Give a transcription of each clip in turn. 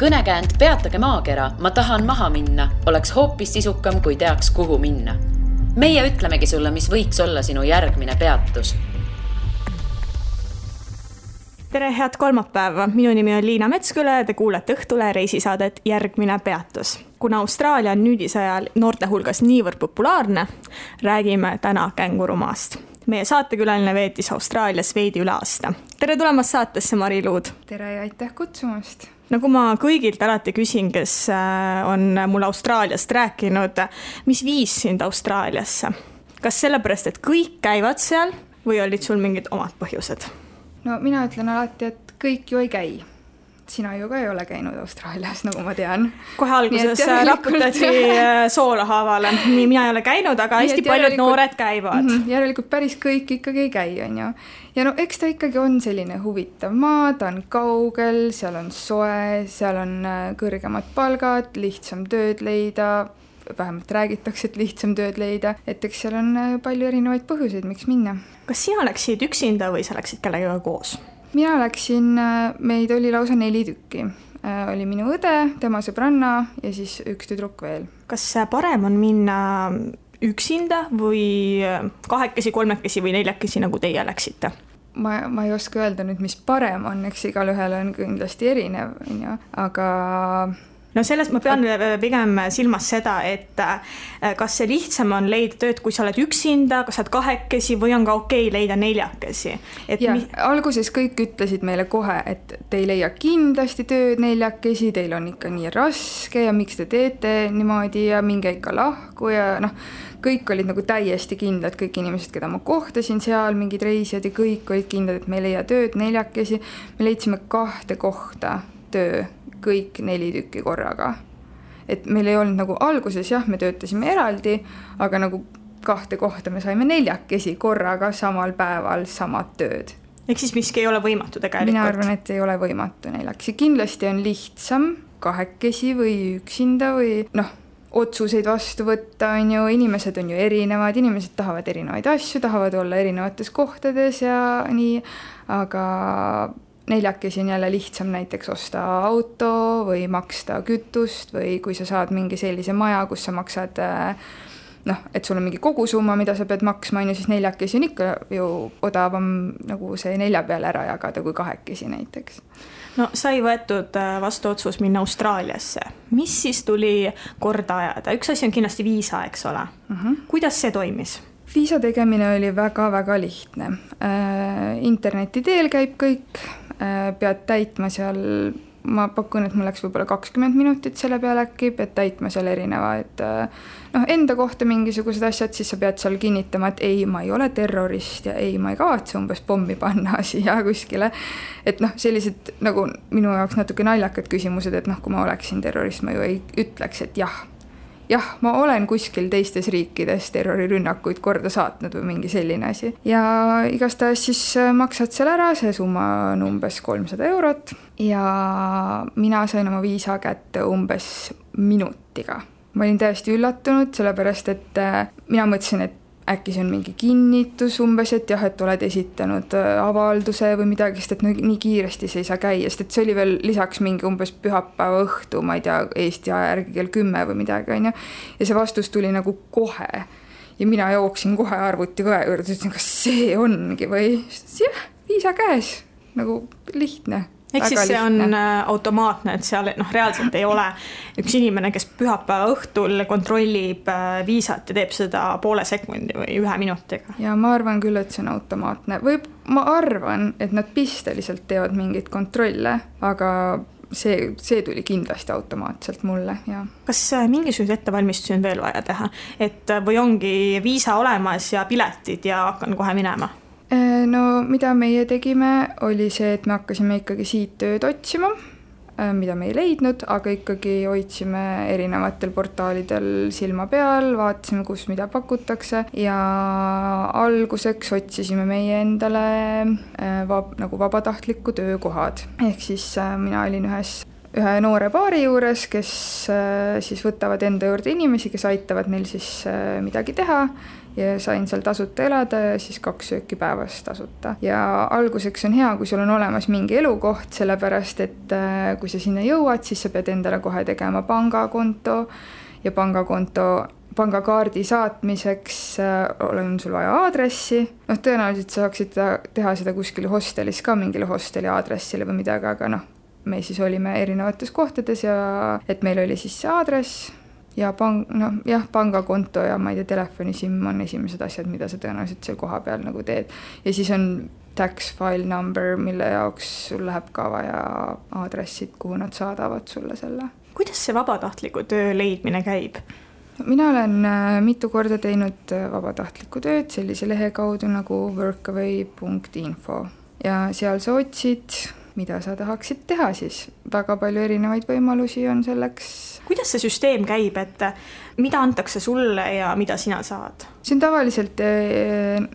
Kõnekäänd Peatage maakera, ma tahan maha minna, oleks hoopis sisukam, kui teaks, kuhu minna. Meie ütlemegi sulle, mis võiks olla sinu järgmine peatus. Tere, head kolmapäeva. Minu nimi on Liina Metsküle ja te kuulete Õhtule reisisaadet Järgmine peatus. Kuna Austraalia on nüüdisajal noorte hulgas niivõrd populaarne, räägime täna kängurumaast. Meie saatekülaline veetis Austraalias veidi üle aasta. Tere tulemast saatesse, Mari Luud. Tere ja aitäh kutsumast. Nagu ma kõigilt alati küsin, kes on mul Austraaliast rääkinud, mis viis sind Austraaliasse? Kas sellepärast, et kõik käivad seal või olid sul mingid omad põhjused? No mina ütlen alati, et kõik ju ei käi. Sina ju ka ei ole käinud Austraalias, nagu ma tean. Kohe alguses raputati soolahaavale. Nii mina ei ole käinud, aga hästi paljud noored käivad. Järelikult päris kõik ikkagi ei käi, on ju. Ja no eks ta ikkagi on selline huvitav maa, ta on kaugel, seal on soe, seal on kõrgemad palgad, lihtsam tööd leida, vähemalt räägitakse, et lihtsam tööd leida, et eks seal on palju erinevaid põhjuseid, miks minna. Kas sina läksid üksinda või sa läksid kellegagi koos? Mina läksin, meid oli lausa 4 tükki. Oli minu õde, tema sõbranna ja siis üks tüdruk veel. Kas parem on minna üksinda või 2, 3 või 4, nagu teie läksite? Ma ei oska öelda nüüd, mis parem on, eks igal ühel on kindlasti erinev, aga... No selles ma pean pigem silmas seda, et kas see lihtsam on leida tööd, kui sa oled üksinda, kas sa oled 2 või on ka okei leida 4. Alguses kõik ütlesid meile kohe, et te ei leia kindlasti tööd 4, teil on ikka nii raske ja miks te teete niimoodi ja minge ikka lahku ja kõik olid nagu täiesti kindlad, kõik inimesed, keda ma kohtasin seal, mingid reisijad ja kõik olid kindlad, et me ei leia tööd 4. Me leidsime 2 kohta töö, kõik 4 tükki korraga. Et meil ei olnud nagu alguses, jah, me töötasime eraldi, aga nagu 2 kohta me saime 4 korraga samal päeval samad tööd. Ehk siis miski ei ole võimatu tegelikult? Mina arvan, et ei ole võimatu 4. Kindlasti on lihtsam 2 või üksinda või otsuseid vastu võtta, on ju, inimesed on ju erinevad, inimesed tahavad erinevaid asju, tahavad olla erinevates kohtades ja nii, aga 4 on jälle lihtsam näiteks osta auto või maksta kütust või kui sa saad mingi sellise maja, kus sa maksad, et sul on mingi kogusumma, mida sa pead maksma, siis 4 on ikka ju odavam nagu see 4 peale ära jagada kui 2 näiteks. No sai võetud vastu otsus minna Austraaliasse. Mis siis tuli korda ajada? Üks asi on kindlasti viisa, eks ole. Kuidas see toimis? Viisa tegemine oli väga-väga lihtne. Interneti teel käib kõik, pead täitma seal, ma pakun, et mul läks võib-olla 20 minutit selle peale äkki, pead täitma seal erinevaid enda kohta mingisugused asjad, siis sa pead seal kinnitama, et ei, ma ei ole terrorist ja ei, ma ei kavatse umbes pommi panna siia kuskile. Et sellised nagu minu jaoks natuke naljakad küsimused, et kui ma oleksin terrorist, ma ju ei ütleks, et jah, ma olen kuskil teistes riikides terrorirünnakuid korda saatnud või mingi selline asi. Ja igastahes siis maksad seal ära, see summa on umbes 300 eurot ja mina sain oma viisa kätte umbes minutiga. Ma olin täiesti üllatunud, sellepärast et mina mõtlesin, et äkki see on mingi kinnitus umbes, et jah, et oled esitanud avalduse või midagi, sest et nii kiiresti see ei saa käia, sest et see oli veel lisaks mingi umbes pühapäeva õhtu, ma ei tea, Eesti aja järgi kell 10 või midagi, on ju. Ja see vastus tuli nagu kohe. Ja mina jooksin kohe arvuti kohe juurde, ütlesin, kas see ongi või? Jah, viisa käes, nagu lihtne. Ehk siis see on automaatne, et seal reaalselt ei ole üks inimene, kes pühapäeva õhtul kontrollib viisat ja teeb seda 0,5 sekundi või 1 minutiga. Ja ma arvan küll, et see on automaatne. Ma arvan, et nad pisteliselt teevad mingit kontrolle, aga see tuli kindlasti automaatselt mulle. Ja. Kas mingisugused ettevalmistusi on veel vaja teha? Või ongi viisa olemas ja piletid ja hakkan kohe minema? No mida meie tegime oli see, et me hakkasime ikkagi siit tööd otsima, mida me ei leidnud, aga ikkagi hoidsime erinevatel portaalidel silma peal, vaatasime, kus mida pakutakse ja alguseks otsisime meie endale nagu vabatahtliku töökohad. Ehk siis mina olin ühe noore paari juures, kes siis võtavad enda juurde inimesi, kes aitavad neil siis midagi teha ja sain seal tasuta elada ja siis 2 sööki päevas tasuta. Ja alguseks on hea, kui sul on olemas mingi elukoht, sellepärast et kui sa sinna jõuad, siis sa pead endale kohe tegema pangakonto ja pangakaardi saatmiseks on sul vaja aadressi. Tõenäoliselt saaksid teha seda kuskil hostelis ka mingile hosteli aadressile või midagi, aga me siis olime erinevates kohtades ja et meil oli siis see aadress ja pangakonto ja ma ei tea, telefonisim on esimesed asjad, mida sa tõenäoliselt seal koha peal nagu teed. Ja siis on tax file number, mille jaoks sul läheb ka vaja aadressid, kuhu nad saadavad sulle selle. Kuidas see vabatahtliku töö leidmine käib? Mina olen mitu korda teinud vabatahtlikku tööd sellise lehe kaudu nagu workaway.info ja seal sa otsid, mida sa tahaksid teha siis. Väga palju erinevaid võimalusi on selleks. Kuidas see süsteem käib, et mida antakse sulle ja mida sina saad? See on tavaliselt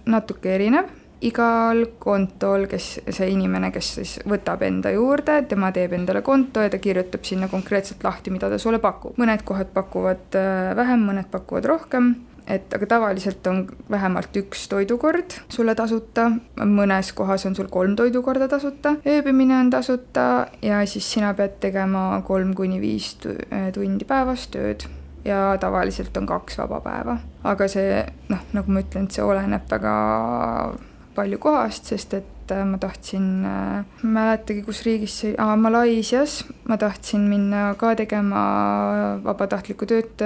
natuke erinev. Igal kontol, see inimene, kes siis võtab enda juurde, tema teeb endale konto ja ta kirjutab sinna konkreetselt lahti, mida ta sulle pakub. Mõned kohad pakuvad vähem, mõned pakuvad rohkem. Aga tavaliselt on vähemalt 1 toidukord sulle tasuta, mõnes kohas on sul 3 toidukorda tasuta, ööbimine on tasuta ja siis sina pead tegema 3-5 tundi päevas tööd ja tavaliselt on 2 vaba päeva. Aga see, nagu ma ütlen, see oleneb väga palju kohast, sest et ma tahtsin, mäletagi, kus riigis see, Malaisias, ma tahtsin minna ka tegema vabatahtlikku tööd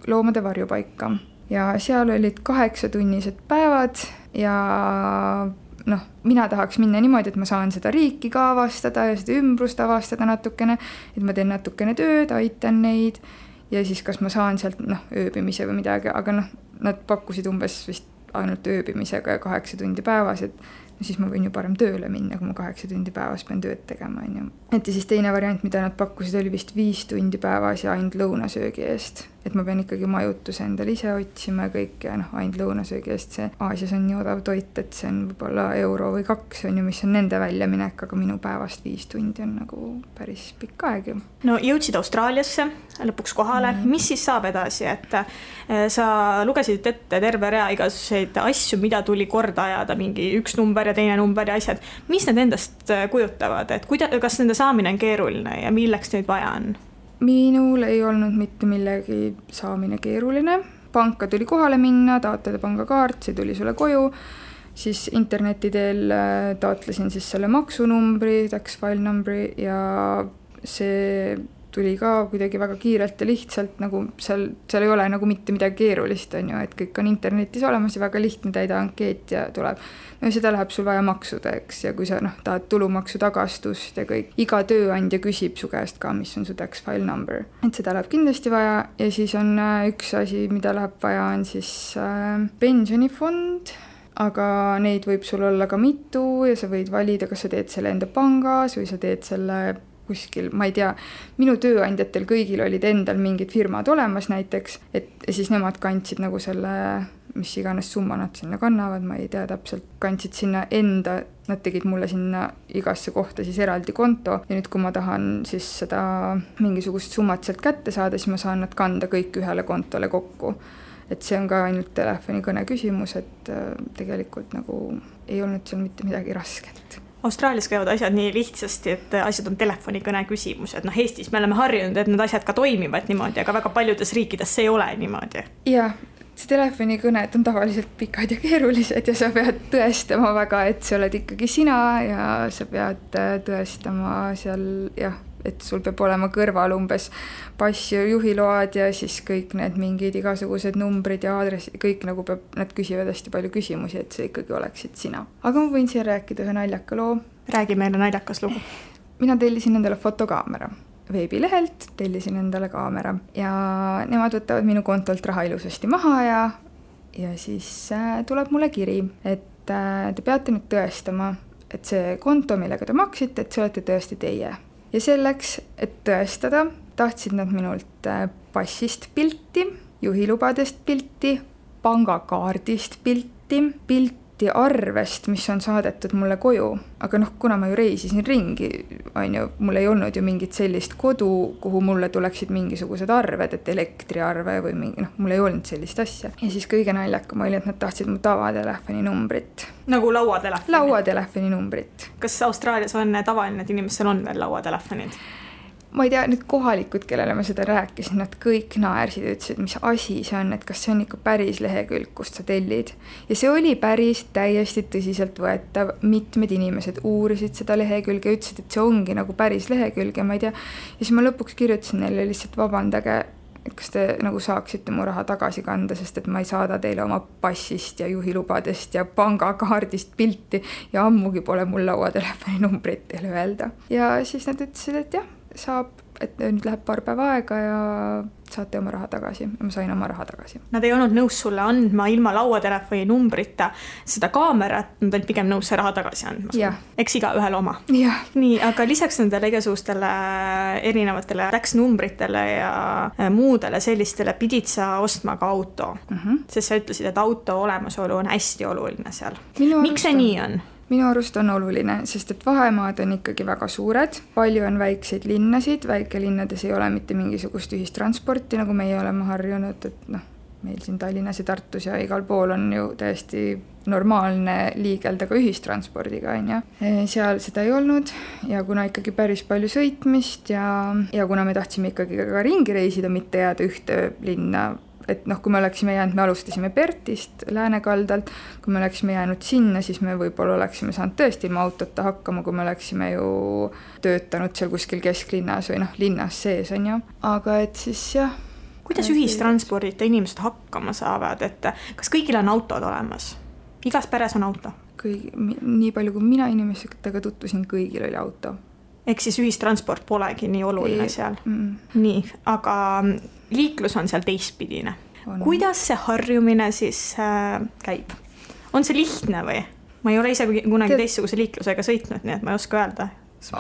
loomade varjupaika. Ja seal olid 8-tunnised päevad ja mina tahaks minna niimoodi, et ma saan seda riiki ka avastada ja seda ümbrust avastada natukene, et ma teen natukene tööd, aitan neid ja siis kas ma saan sealt ööbimise või midagi, aga nad pakkusid umbes vist ainult ööbimisega ja 8 tundi päevas, et siis ma võin ju parem tööle minna, kui ma 8 tundi päevas pean tööd tegema. Et ja siis teine variant, mida nad pakkusid, oli vist 5 tundi päevas ja ainult lõunasöögi eest. Et ma pean ikkagi majutuse endale ise otsima kõik ja ainult lõunasöögi eest. See Aasias on nii odav toit, et see on võib-olla euro või 2, on ju, mis on nende väljaminek, aga minu päevast 5 tundi on nagu päris pikk aeg ju. No jõudsid Austraaliasse lõpuks kohale. Mis siis saab edasi, et sa lugesid ette terve rea igasuguseid asju, mida tuli korda ajada, mingi 1 number ja teine number ja asjad. Mis need endast kujutavad, et kas nende saamine on keeruline ja milleks neid vaja on? Minul ei olnud mitte millegi saamine keeruline. Panka tuli kohale minna, taotleda pangakaart, see tuli sulle koju. Siis interneti teel taotlesin siis selle maksunumbri, tax file numbri ja see tuli ka kuidagi väga kiirelt ja lihtsalt, nagu seal ei ole nagu mitte midagi keerulist, on ju, et kõik on internetis olemas ja väga lihtne täida ankeet ja tuleb. No seda läheb sul vaja maksudeks ja kui sa tahad tulumaksu tagastust ja kõik, iga tööandja küsib su käest ka, mis on su tax file number. Et seda läheb kindlasti vaja ja siis on üks asi, mida läheb vaja, on siis pensionifond, aga neid võib sul olla ka mitu ja sa võid valida, kas sa teed selle enda pangas või sa teed selle kuskil, ma ei tea, minu tööandjatel kõigil olid endal mingid firmad olemas näiteks, et siis nemad kandsid nagu selle, mis iganes summa nad sinna kannavad, ma ei tea täpselt, kandsid sinna enda, nad tegid mulle sinna igasse kohta siis eraldi konto ja nüüd, kui ma tahan siis seda mingisugust summat sealt kätte saada, siis ma saan nad kanda kõik ühele kontole kokku. Et see on ka ainult telefonikõne küsimus, et tegelikult nagu ei olnud seal mitte midagi rasket. Austraalias käivad asjad nii lihtsasti, et asjad on telefonikõne küsimus, et Eestis me oleme harjunud, et need asjad ka toimivad niimoodi, aga väga paljudes riikides see ei ole niimoodi. Jah, see telefonikõned on tavaliselt pikad ja keerulised ja sa pead tõestama väga, et sa oled ikkagi sina ja sa pead tõestama seal, jah, et sul peab olema kõrval umbes pass ja juhiload ja siis kõik need mingid igasugused numbrid ja aadressid, kõik nagu peab, nad küsivad hästi palju küsimusi, et see ikkagi oleksid sina. Aga ma võin siin rääkida ühe naljaka loo. Räägi meile naljakas lugu. Mina tellisin endale fotokaamera. Veebilehelt tellisin endale kaamera ja nemad võtavad minu kontolt raha ilusasti maha ja siis tuleb mulle kiri, et te peate nüüd tõestama, et see konto, millega te maksite, et see olete tõesti teie. Ja selleks, et tõestada, tahtsid nad minult passist pilti, juhilubadest pilti, pangakaardist pilti arvest, mis on saadetud mulle koju. Aga kuna ma ju reisisin ringi on ju, mul ei olnud ju mingit sellist kodu, kuhu mulle tuleksid mingisugused arved, et elektriarve või mingi, mul ei olnud sellist asja. Ja siis kõige naljakam oli, et nad tahtsid mu tavatelefoni numbrit. Nagu lauatelefoni? Lauatelefoni numbrit. Kas Austraalias on tavaline, et inimestel on veel lauatelefonid? Ma ei tea, need kohalikud, kellele ma seda rääkisin, nad kõik naersid ja ütlesid, mis asi see on, et kas see on ikka päris lehekülg, kust sa tellid. Ja see oli päris täiesti tõsiselt võetav. Mitmed inimesed uurisid seda lehekülge ja ütlesid, et see ongi nagu päris lehekülg ja ma ei tea. Ja siis ma lõpuks kirjutasin neile lihtsalt vabandage, et kas te nagu saaksite mu raha tagasi kanda, sest et ma ei saada teile oma passist ja juhilubadest ja pangakaardist pilti ja ammugi pole mul lauatelefoni numbrit teile öelda. Ja siis nad ütlesid, et jah, saab, et nüüd läheb paar päeva aega ja saate oma raha tagasi. Ja ma sain oma raha tagasi. Nad ei olnud nõus sulle andma ilma lauatelefoni numbrita seda kaamerat, nad olid pigem nõus see raha tagasi andma. Eks iga ühel oma. Ja. Nii, aga lisaks nendele igasugustele erinevatele läksnumbritele ja muudele sellistele pidid sa ostma ka auto. Sest sa ütlesid, et auto olemasolu on hästi oluline seal. Miks see nii on? Minu arust on oluline, sest et vahemaad on ikkagi väga suured, palju on väikseid linnasid, väikelinnades ei ole mitte mingisugust ühistransporti, nagu meie oleme harjunud, et meil siin Tallinnas ja Tartus ja igal pool on ju täiesti normaalne liigelda ka ühistranspordiga, on ju. Seal seda ei olnud ja kuna ikkagi päris palju sõitmist ja kuna me tahtsime ikkagi ka ringi reisida, mitte jääda ühte linna, et kui me oleksime jäänud, me alustasime Pertist Läänekaldalt, kui me oleksime jäänud sinna, siis me võib-olla oleksime saanud tõesti ilma autota hakkama, kui me oleksime ju töötanud seal kuskil kesklinnas või linnas sees, on ju. Aga et siis jah. Kuidas ühistranspordita inimesed hakkama saavad, et kas kõigil on autod olemas? Igas peres on auto? Nii palju, kui mina inimestega tutvusin, kõigil oli auto. Ehk siis ühistransport polegi nii oluline seal. Nii, aga liiklus on seal teistpidine. Kuidas see harjumine siis käib? On see lihtne või? Ma ei ole ise kunagi teistsuguse liiklusega sõitnud, nii et ma ei oska öelda.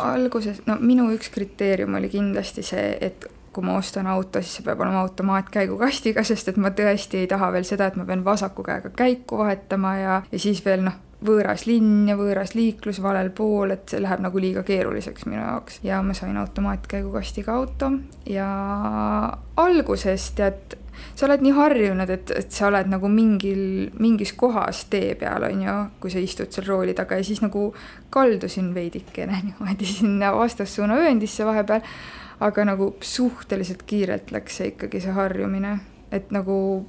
Alguses, minu üks kriteerium oli kindlasti see, et kui ma ostan auto, siis see peab olema automaatkäigukastiga, sest et ma tõesti ei taha veel seda, et ma pean vasaku käega käiku vahetama ja siis veel võõras linn ja võõras liiklus valel pool, et see läheb nagu liiga keeruliseks minu jaoks. Ja ma sain automaatkäigukastiga auto ja alguses tead, sa oled nii harjunud, et sa oled nagu mingis kohas tee peal, on ju, kui sa istud seal rooli taga ja siis nagu kaldusin veidikene niimoodi sinna vastassuuna ööndisse vahepeal, aga nagu suhteliselt kiirelt läks see ikkagi see harjumine, et nagu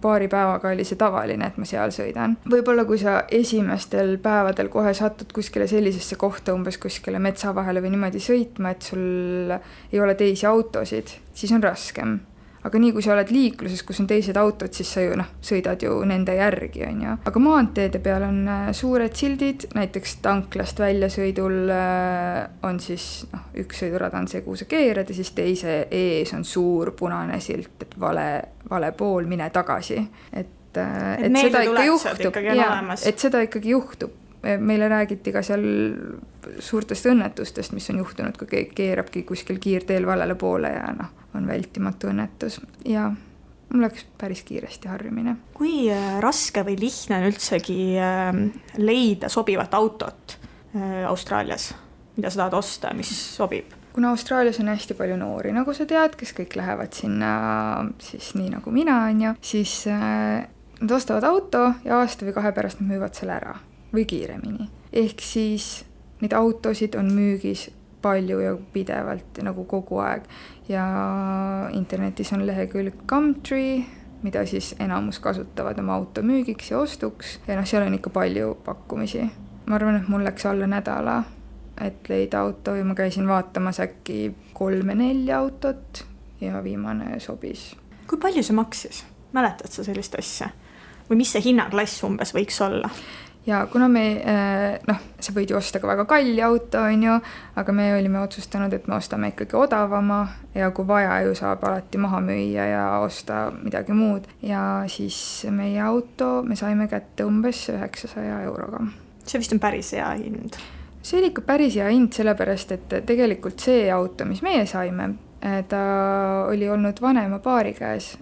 paari päevaga oli see tavaline, et ma seal sõidan. Võib-olla kui sa esimestel päevadel kohe satud kuskile sellisesse kohta, umbes kuskile metsa vahele või niimoodi sõitma, et sul ei ole teisi autosid, siis on raskem. Aga nii kui sa oled liikluses, kus on teised autod, siis sa ju sõidad ju nende järgi, on ju. Aga maanteede peal on suured sildid, näiteks tanklast väljasõidul on siis üks sõidurada on see, kuhu sa keerad ja siis teise ees on suur punane silt, et vale pool, mine tagasi. Et seda ikka juhtub. Et seda ikkagi juhtub. Meile räägiti ka seal suurtest õnnetustest, mis on juhtunud, kui keerabki kuskil kiirteel valele poole ja on vältimatu õnnetus. Ja mul läks päris kiiresti harjumine. Kui raske või lihtne on üldsegi leida sobivat autot Austraalias, mida sa tahad osta, mis sobib? Kuna Austraalias on hästi palju noori, nagu sa tead, kes kõik lähevad sinna siis nii nagu mina, on ju, siis nad ostavad auto ja aasta või 2 pärast nad müüvad selle ära või kiiremini. Ehk siis neid autosid on müügis palju ja pidevalt nagu kogu aeg. Ja internetis on lehekülg Gumtree, mida siis enamus kasutavad oma auto müügiks ja ostuks. Ja seal on ikka palju pakkumisi. Ma arvan, et mul läks alla nädala, et leida auto ja ma käisin vaatamas äkki 3-4 autot ja viimane sobis. Kui palju see maksis? Mäletad sa sellist asja? Või mis see hinnaklass umbes võiks olla? Ja kuna me, sa võid ju osta ka väga kalli auto, on ju, aga me olime otsustanud, et me ostame ikkagi odavama ja kui vaja ju saab alati maha müüa ja osta midagi muud. Ja siis meie auto me saime kätte umbes 900 euroga. See vist on päris hea hind. See oli ikka päris hea hind, sellepärast, et tegelikult see auto, mis meie saime, ta oli olnud vanema paari käes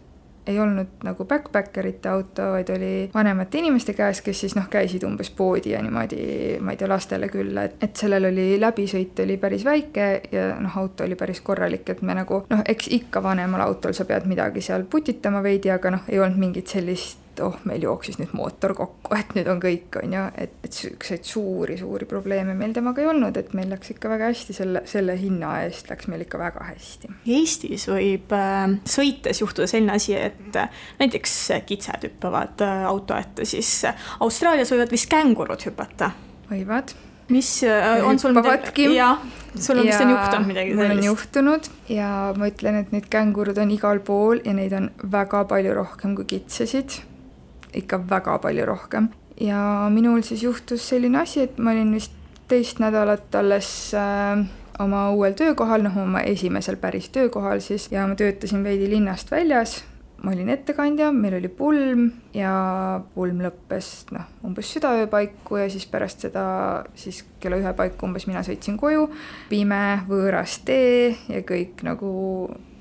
ei olnud nagu backpackerite auto, vaid oli vanemate inimeste käes, kes siis käisid umbes poodi ja niimoodi, ma ei tea, lastele külla, et sellel oli läbisõit oli päris väike ja auto oli päris korralik, et me nagu eks ikka vanemal autol sa pead midagi seal putitama veidi, aga ei olnud mingit sellist meil jooksis nüüd mootor kokku, et nüüd on kõik, on ju, et sükseid suuri probleeme meil temaga ei olnud, et meil läks ikka väga hästi, selle hinna eest läks meil ikka väga hästi. Eestis võib sõites juhtuda selline asi, et näiteks kitsed hüppavad auto ette, siis Austraalias võivad vist kängurud hüpata. Võivad. Mis on sul midagi? Jah, sul on vist on juhtunud midagi sellist. Mul on juhtunud ja ma ütlen, et need kängurud on igal pool ja neid on väga palju rohkem kui kitsesid. Ikka väga palju rohkem. Ja minul siis juhtus selline asi, et ma olin vist 2 nädalat alles oma uuel töökohal, oma esimesel päris töökohal siis, ja ma töötasin veidi linnast väljas. Ma olin ettekandja, meil oli pulm ja pulm lõppes umbes südaöö paiku ja siis pärast seda siis kella 1 paiku umbes mina sõitsin koju. Pime, võõras tee ja kõik nagu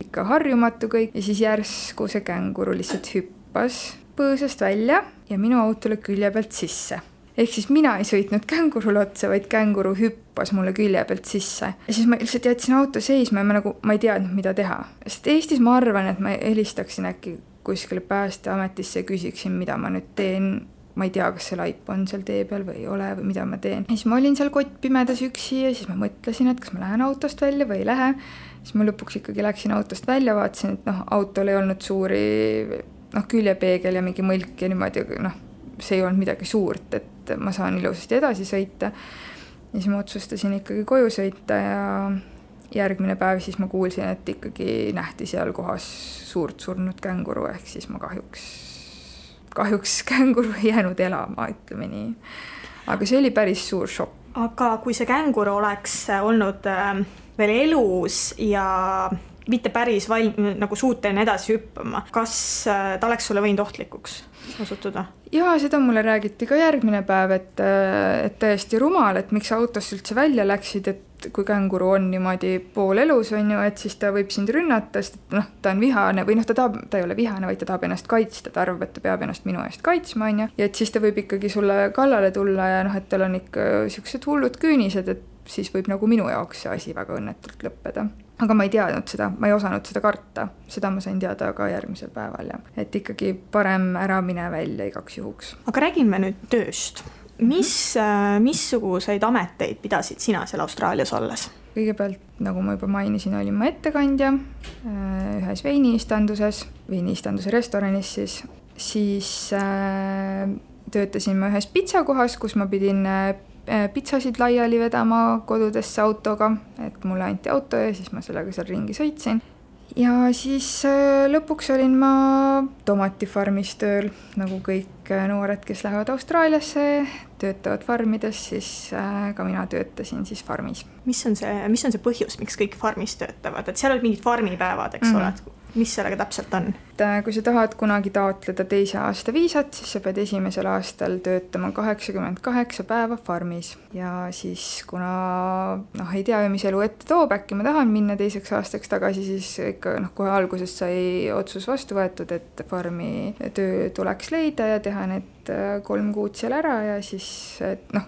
ikka harjumatu kõik ja siis järsku see känguru lihtsalt hüppas põõsast välja ja minu autole külje pealt sisse. Ehk siis mina ei sõitnud kängurule otsa, vaid känguru hüppas mulle külje pealt sisse. Ja siis ma lihtsalt jätsin auto seisma ja ma ei teadnud, mida teha. Sest Eestis ma arvan, et ma helistaksin äkki kuskile Päästeametisse ja küsiksin, mida ma nüüd teen. Ma ei tea, kas see laip on seal tee peal või ei ole või mida ma teen. Ja siis ma olin seal kottpimedas üksi ja siis ma mõtlesin, et kas ma lähen autost välja või ei lähe. Siis ma lõpuks ikkagi läksin autost välja, vaatasin, et autol ei olnud suuri küljepeegel ja mingi mõlk ja niimoodi, see ei olnud midagi suurt, et ma saan ilusasti edasi sõita. Ja siis ma otsustasin ikkagi koju sõita ja järgmine päev siis ma kuulsin, et ikkagi nähti seal kohas suurt surnud känguru, ehk siis ma kahjuks känguru ei jäänud elama, ütleme nii. Aga see oli päris suur šokk. Aga kui see känguru oleks olnud veel elus ja mitte päris nagu suuteline edasi hüppama. Kas ta oleks sulle võinud ohtlikuks osutuda? Jaa, seda mulle räägiti ka järgmine päev, et täiesti rumal, et miks autost üldse välja läksid, et kui känguru on niimoodi pool elus, on ju, et siis ta võib sind rünnata, sest ta on vihane või ta ei ole vihane, vaid ta tahab ennast kaitsta, ta arvab, et ta peab ennast minu eest kaitsma, on ju, ja et siis ta võib ikkagi sulle kallale tulla ja et tal on ikka sellised hullud küünised, et siis võib nagu minu jaoks see asi väga õnnetult lõppeda. Aga ma ei teadnud seda, ma ei osanud seda karta. Seda ma sain teada ka järgmisel päeval. Ja. Et ikkagi parem ära mine välja igaks juhuks. Aga räägime nüüd tööst. Missuguseid ameteid pidasid sina seal Austraalias olles? Kõigepealt, nagu ma juba mainisin, olin ma ettekandja ühes veiniistanduse restoranis. Siis töötasin ma ühes pitsakohas, kus ma pidin pitsasid laiali vedama kodudesse autoga, et mulle anti auto ja siis ma sellega seal ringi sõitsin. Ja siis lõpuks olin ma tomatifarmis tööl, nagu kõik noored, kes lähevad Austraaliasse, töötavad farmides, siis ka mina töötasin siis farmis. Mis on see põhjus, miks kõik farmis töötavad? Et seal olid mingid farmipäevad, eks ole? Mis sellega täpselt on? Kui sa tahad kunagi taotleda 2. aasta viisat, siis sa pead 1. aastal töötama 88 päeva farmis. Ja siis kuna ei tea, mis elu ette toob, äkki ma tahan minna 2. aastaks tagasi, siis ikka kohe alguses sai otsus vastu võetud, et farmi töö tuleks leida ja teha need 3 kuud seal ära ja siis,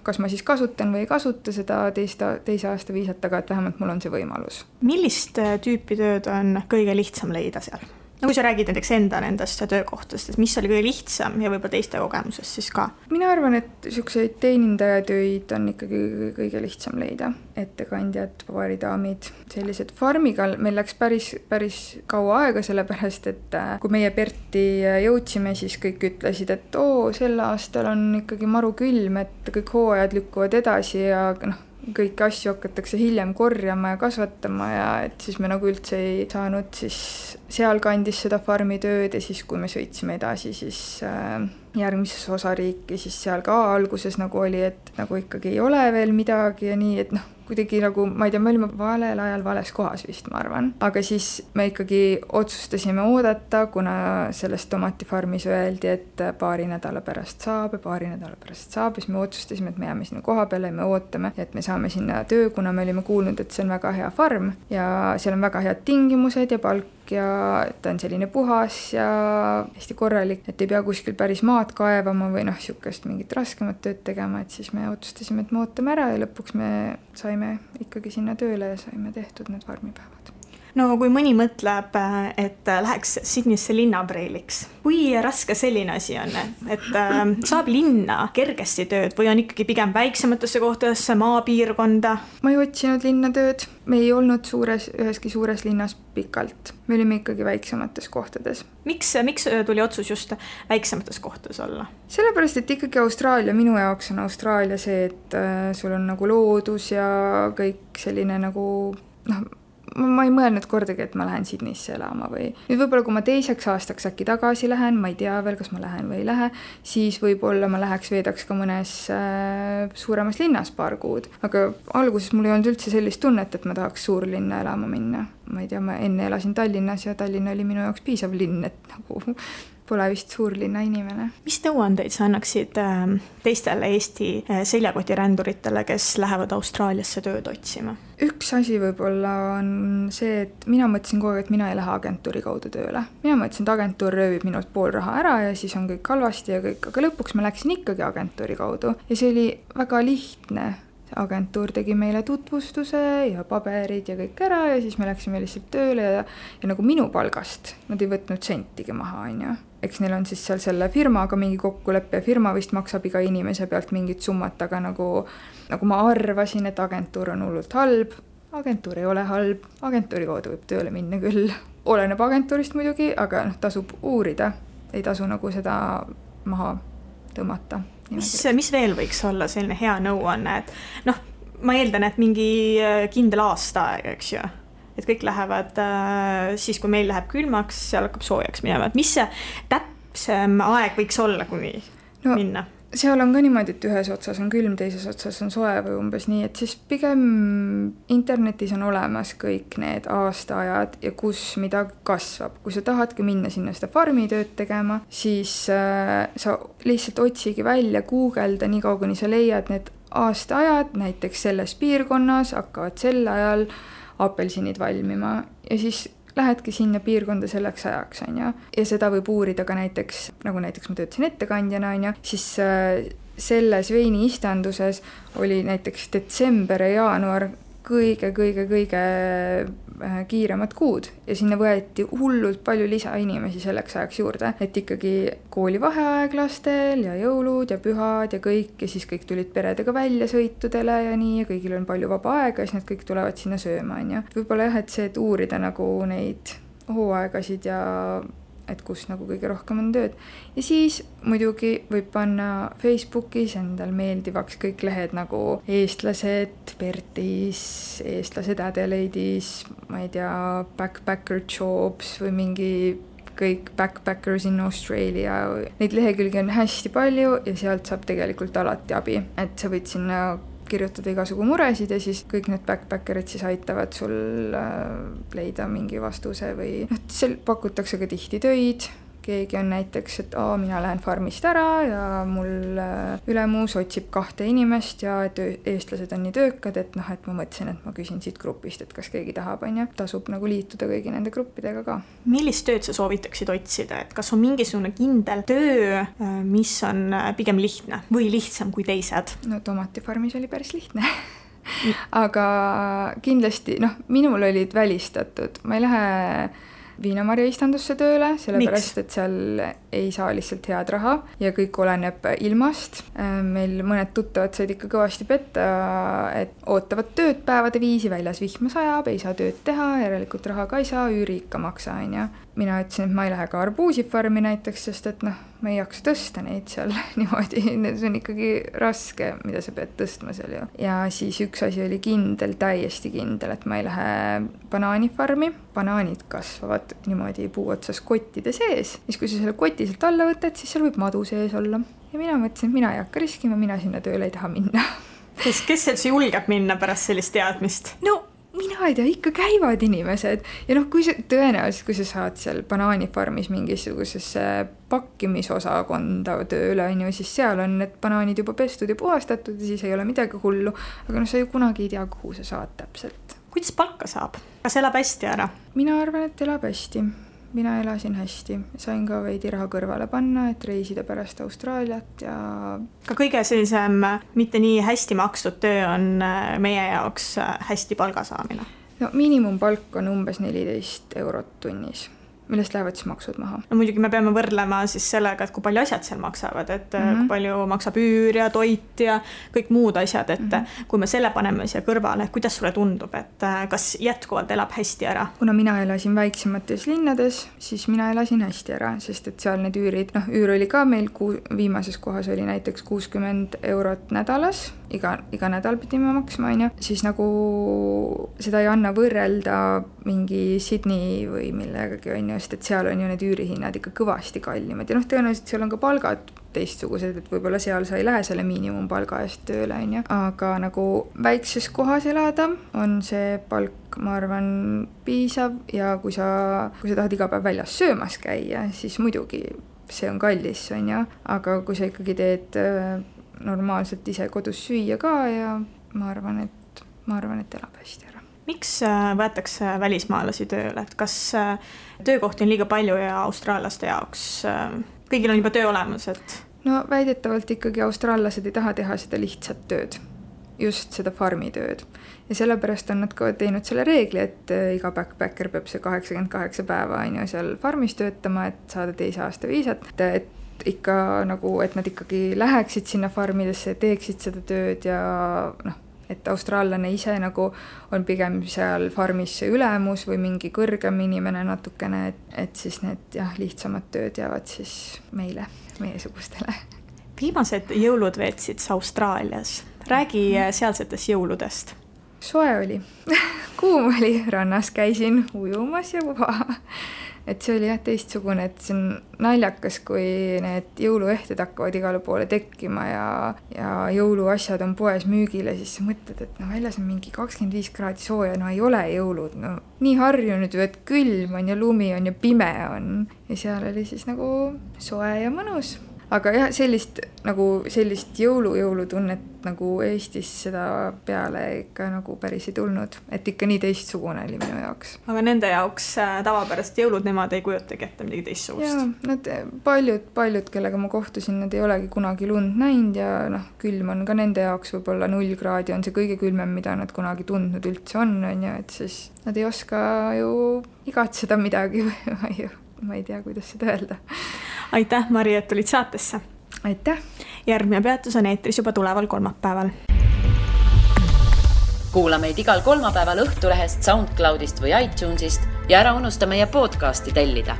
kas ma siis kasutan või ei kasuta seda 2. aasta viisat, aga et vähemalt mul on see võimalus. Millist tüüpi tööd on kõige lihtsam leida seal? Kui sa räägid näiteks nendest töökohtast, et mis oli kõige lihtsam ja võib-olla teiste kogemusest siis ka? Mina arvan, et selliseid teenindajatöid on ikkagi kõige lihtsam leida. Ettekandjad, baaridaamid, sellised farmiga meil läks päris kaua aega, sellepärast, et kui meie Perti jõudsime, siis kõik ütlesid, et sel aastal on ikkagi maru külm, et kõik hooajad lükkuvad edasi ja kõiki asju hakatakse hiljem korjama ja kasvatama ja et siis me nagu üldse ei saanud siis seal kandis seda farmi tööd ja siis kui me sõitsime edasi siis järgmises osariiki, siis seal ka alguses nagu oli, et nagu ikkagi ei ole veel midagi ja nii, et kuidagi nagu, ma ei tea, me olime valel ajal vales kohas vist, ma arvan. Aga siis me ikkagi otsustasime oodata, kuna sellest tomatifarmis öeldi, et paari nädala pärast saab, siis me otsustasime, et me jääme sinna koha peale ja me ootame, et me saame sinna töö, kuna me olime kuulnud, et see on väga hea farm ja seal on väga head tingimused ja palk ja ta on selline puhas ja hästi korralik, et ei pea kuskil päris maad kaevama või niisugust mingit raskemat tööd tegema, et siis me otsustasime, et me ootame ära ja lõpuks me saime ikkagi sinna tööle ja saime tehtud need farmipäevad. No kui mõni mõtleb, et läheks Sydneysse linnapreiliks, kui raske selline asi on, et saab linna kergesti tööd või on ikkagi pigem väiksematesse kohtadesse, maapiirkonda? Ma ei otsinud linnatööd, me ei olnud üheski suures linnas pikalt, me olime ikkagi väiksemates kohtades. Miks tuli otsus just väiksemates kohtades olla? Sellepärast, et ikkagi Austraalia, minu jaoks on Austraalia see, et sul on nagu loodus ja kõik selline nagu ma ei mõelnud kordagi, et ma lähen Sydneysse elama või nüüd võib-olla kui ma teiseks aastaks äkki tagasi lähen, ma ei tea veel, kas ma lähen või ei lähe, siis võib-olla ma veedaks ka mõnes suuremas linnas paar kuud, aga alguses mul ei olnud üldse sellist tunnet, et ma tahaks suurlinna elama minna. Ma ei tea, ma enne elasin Tallinnas ja Tallinn oli minu jaoks piisav linn, et nagu pole vist suurlinna inimene. Mis nõuandeid sa annaksid teistele Eesti seljakotiränduritele, kes lähevad Austraaliasse tööd otsima? Üks asi võib-olla on see, et mina mõtlesin kogu aeg, et mina ei lähe agentuuri kaudu tööle. Mina mõtlesin, et agentuur röövib minult pool raha ära ja siis on kõik halvasti ja kõik, aga lõpuks ma läksin ikkagi agentuuri kaudu ja see oli väga lihtne. Agentuur tegi meile tutvustuse ja paberid ja kõik ära ja siis me läksime lihtsalt tööle ja nagu minu palgast nad ei võtnud sentigi maha, on ju. Eks neil on siis seal selle firmaga mingi kokkuleppe ja firma vist maksab iga inimese pealt mingit summat, aga nagu ma arvasin, et agentuur on hullult halb. Agentuur ei ole halb, agentuuri kaudu võib tööle minna küll. Oleneb agentuurist muidugi, aga tasub uurida, ei tasu nagu seda maha tõmmata. Mis veel võiks olla selline hea nõuanne, et ma eeldan, et mingi kindel aasta aeg, eks ju, et kõik lähevad siis, kui meil läheb külmaks, seal hakkab soojaks minema, et mis see täpsem aeg võiks olla, kuni minna? Seal on ka niimoodi, et ühes otsas on külm, teises otsas on soe või umbes nii, et siis pigem internetis on olemas kõik need aastaajad ja kus mida kasvab. Kui sa tahadki minna sinna seda farmitööd tegema, siis sa lihtsalt otsigi välja, guugelda nii kaua, kuni sa leiad need aastaajad, näiteks selles piirkonnas hakkavad sel ajal apelsinid valmima ja siis lähedki sinna piirkonda selleks ajaks, on ju. Ja seda võib uurida ka näiteks, nagu näiteks ma töötasin ettekandjana, on ju, siis selles veini istanduses oli näiteks detsember ja jaanuar kõige kiiremad kuud ja sinna võeti hullult palju lisainimesi selleks ajaks juurde, et ikkagi koolivaheaeg lastel ja jõulud ja pühad ja kõik ja siis kõik tulid peredega välja sõitudele ja nii ja kõigil on palju vaba aega ja siis nad kõik tulevad sinna sööma, on ju. Võib-olla jah, et see, et uurida nagu neid hooaegasid ja et kus nagu kõige rohkem on tööd. Ja siis muidugi võib panna Facebookis endal meeldivaks kõik lehed nagu eestlased Pertis, eestlased Adelaide'is, ma ei tea, backpacker jobs või mingi kõik backpackers in Australia. Neid lehekülgi on hästi palju ja sealt saab tegelikult alati abi, et sa võid sinna kirjutada igasugu muresid ja siis kõik need backpackerid siis aitavad sul leida mingi vastuse või seal pakutakse ka tihti töid. Keegi on näiteks, et mina lähen farmist ära ja mul ülemuus otsib 2 inimest ja et eestlased on nii töökad, et et ma mõtlesin, et ma küsin siit grupist, et kas keegi tahab, on ju. Tasub nagu liituda kõigi nende gruppidega ka. Millist tööd sa soovitaksid otsida, et kas on mingisugune kindel töö, mis on pigem lihtne või lihtsam kui teised? No tomatifarmis oli päris lihtne. Aga kindlasti, minul olid välistatud. Ma ei lähe viinamarja istandusse tööle, sellepärast, et seal ei saa lihtsalt head raha ja kõik oleneb ilmast. Meil mõned tuttavad said ikka kõvasti petta, et ootavad tööd päevade viisi, väljas vihma sajab, ei saa tööd teha, järelikult raha ka ei saa, üüri ikka maksa, on ju. Mina ütlesin, et ma ei lähe ka arbuusifarmi näiteks, sest et ma ei jaksa tõsta neid seal niimoodi, see on ikkagi raske, mida sa pead tõstma seal ju. Ja siis üks asi oli kindel, täiesti kindel, et ma ei lähe banaanifarmi. Banaanid kasvavad niimoodi puu otsas kottide sees. Siis kui sa selle koti sealt alla võtad, siis seal võib madu sees olla. Ja mina mõtlesin, et mina ei hakka riskima, mina sinna tööle ei taha minna. Kes seal julgeb minna pärast sellist teadmist? Mina ei tea, ikka käivad inimesed ja kui tõenäoliselt, kui sa saad seal banaanifarmis mingisugusesse pakkimisosakonda tööle, on ju, siis seal on need banaanid juba pestud ja puhastatud ja siis ei ole midagi hullu, aga sa ju kunagi ei tea, kuhu sa saad täpselt. Kuidas palka saab? Kas elab hästi ära? Mina arvan, et elab hästi. Mina elasin hästi. Sain ka veidi raha kõrvale panna, et reisida pärast Austraaliat ja... Ka kõige sellisem mitte nii hästi makstud töö on meie jaoks hästi palga saamine. No miinimumpalk on umbes 14 eurot tunnis, millest lähevad siis maksud maha. No muidugi me peame võrdlema siis sellega, et kui palju asjad seal maksavad, et kui palju maksab üür ja toit ja kõik muud asjad, et kui me selle paneme siia kõrvale, kuidas sulle tundub, et kas jätkuvalt elab hästi ära? Kuna mina elasin väiksemates linnades, siis mina elasin hästi ära, sest et seal need üürid, üür oli ka meil viimases kohas oli näiteks 60 eurot nädalas, iga nädal pidime maksma, siis nagu seda ei anna võrrelda mingi Sydney või millegagi, sest et seal on ju need üürihinnad ikka kõvasti kallimad ja tõenäoliselt seal on ka palgad teistsugused, et võib-olla seal sa ei lähe selle miinimumpalga eest tööle, aga nagu väikses kohas elada on see palk, ma arvan, piisav ja kui sa tahad iga päev väljas söömas käia, siis muidugi see on kallis, aga kui sa ikkagi teed normaalselt ise kodus süüa ka ja ma arvan, et elab hästi ära. Miks võetakse välismaalasi tööle? Et kas töökohti on liiga palju ja austraallaste jaoks kõigil on juba töö olemas? No väidetavalt ikkagi austraallased ei taha teha seda lihtsat tööd, just seda farmitööd. Ja sellepärast on nad ka teinud selle reegli, et iga backpacker peab see 88 päeva seal farmis töötama, et saada 2 aasta viisat. Et ikka nagu, et nad ikkagi läheksid sinna farmidesse, teeksid seda tööd ja et austraallane ise nagu on pigem seal farmis ülemus või mingi kõrgem inimene natukene, et siis need lihtsamad tööd jäävad siis meiesugustele. Viimased jõulud veetsid Austraalias. Räägi sealsetest jõuludest. Soe oli. Kuum oli, rannas käisin ujumas ja puha. Et see oli teistsugune, et see on naljakas, kui need jõuluehted hakkavad igale poole tekkima ja jõuluasjad on poes müügile, siis sa mõtled, et väljas on mingi 25 kraadi sooja, ei ole jõulud. Nii harjunud ju, et külm on ja lumi on ja pime on. Ja seal oli siis nagu soe ja mõnus. Aga jah, sellist jõulutunnet nagu Eestis seda peale ikka nagu päris ei tulnud. Et ikka nii teistsugune oli minu jaoks. Aga nende jaoks tavapärast jõulud nemad ei kujutagi ette midagi teistsugust? Jaa, nad paljud, kellega ma kohtusin, nad ei olegi kunagi lund näinud ja külm on ka nende jaoks võib-olla 0 kraadi on see kõige külmem, mida nad kunagi tundnud üldse on, et siis nad ei oska ju igatseda midagi või ma ei tea, kuidas seda öelda. Aitäh, Mari, et tulid saatesse. Aitäh. Järgmine peatus on eetris juba tuleval kolmapäeval. Kuula meid igal kolmapäeval Õhtulehest, SoundCloudist või iTunesist ja ära unusta meie podcasti tellida.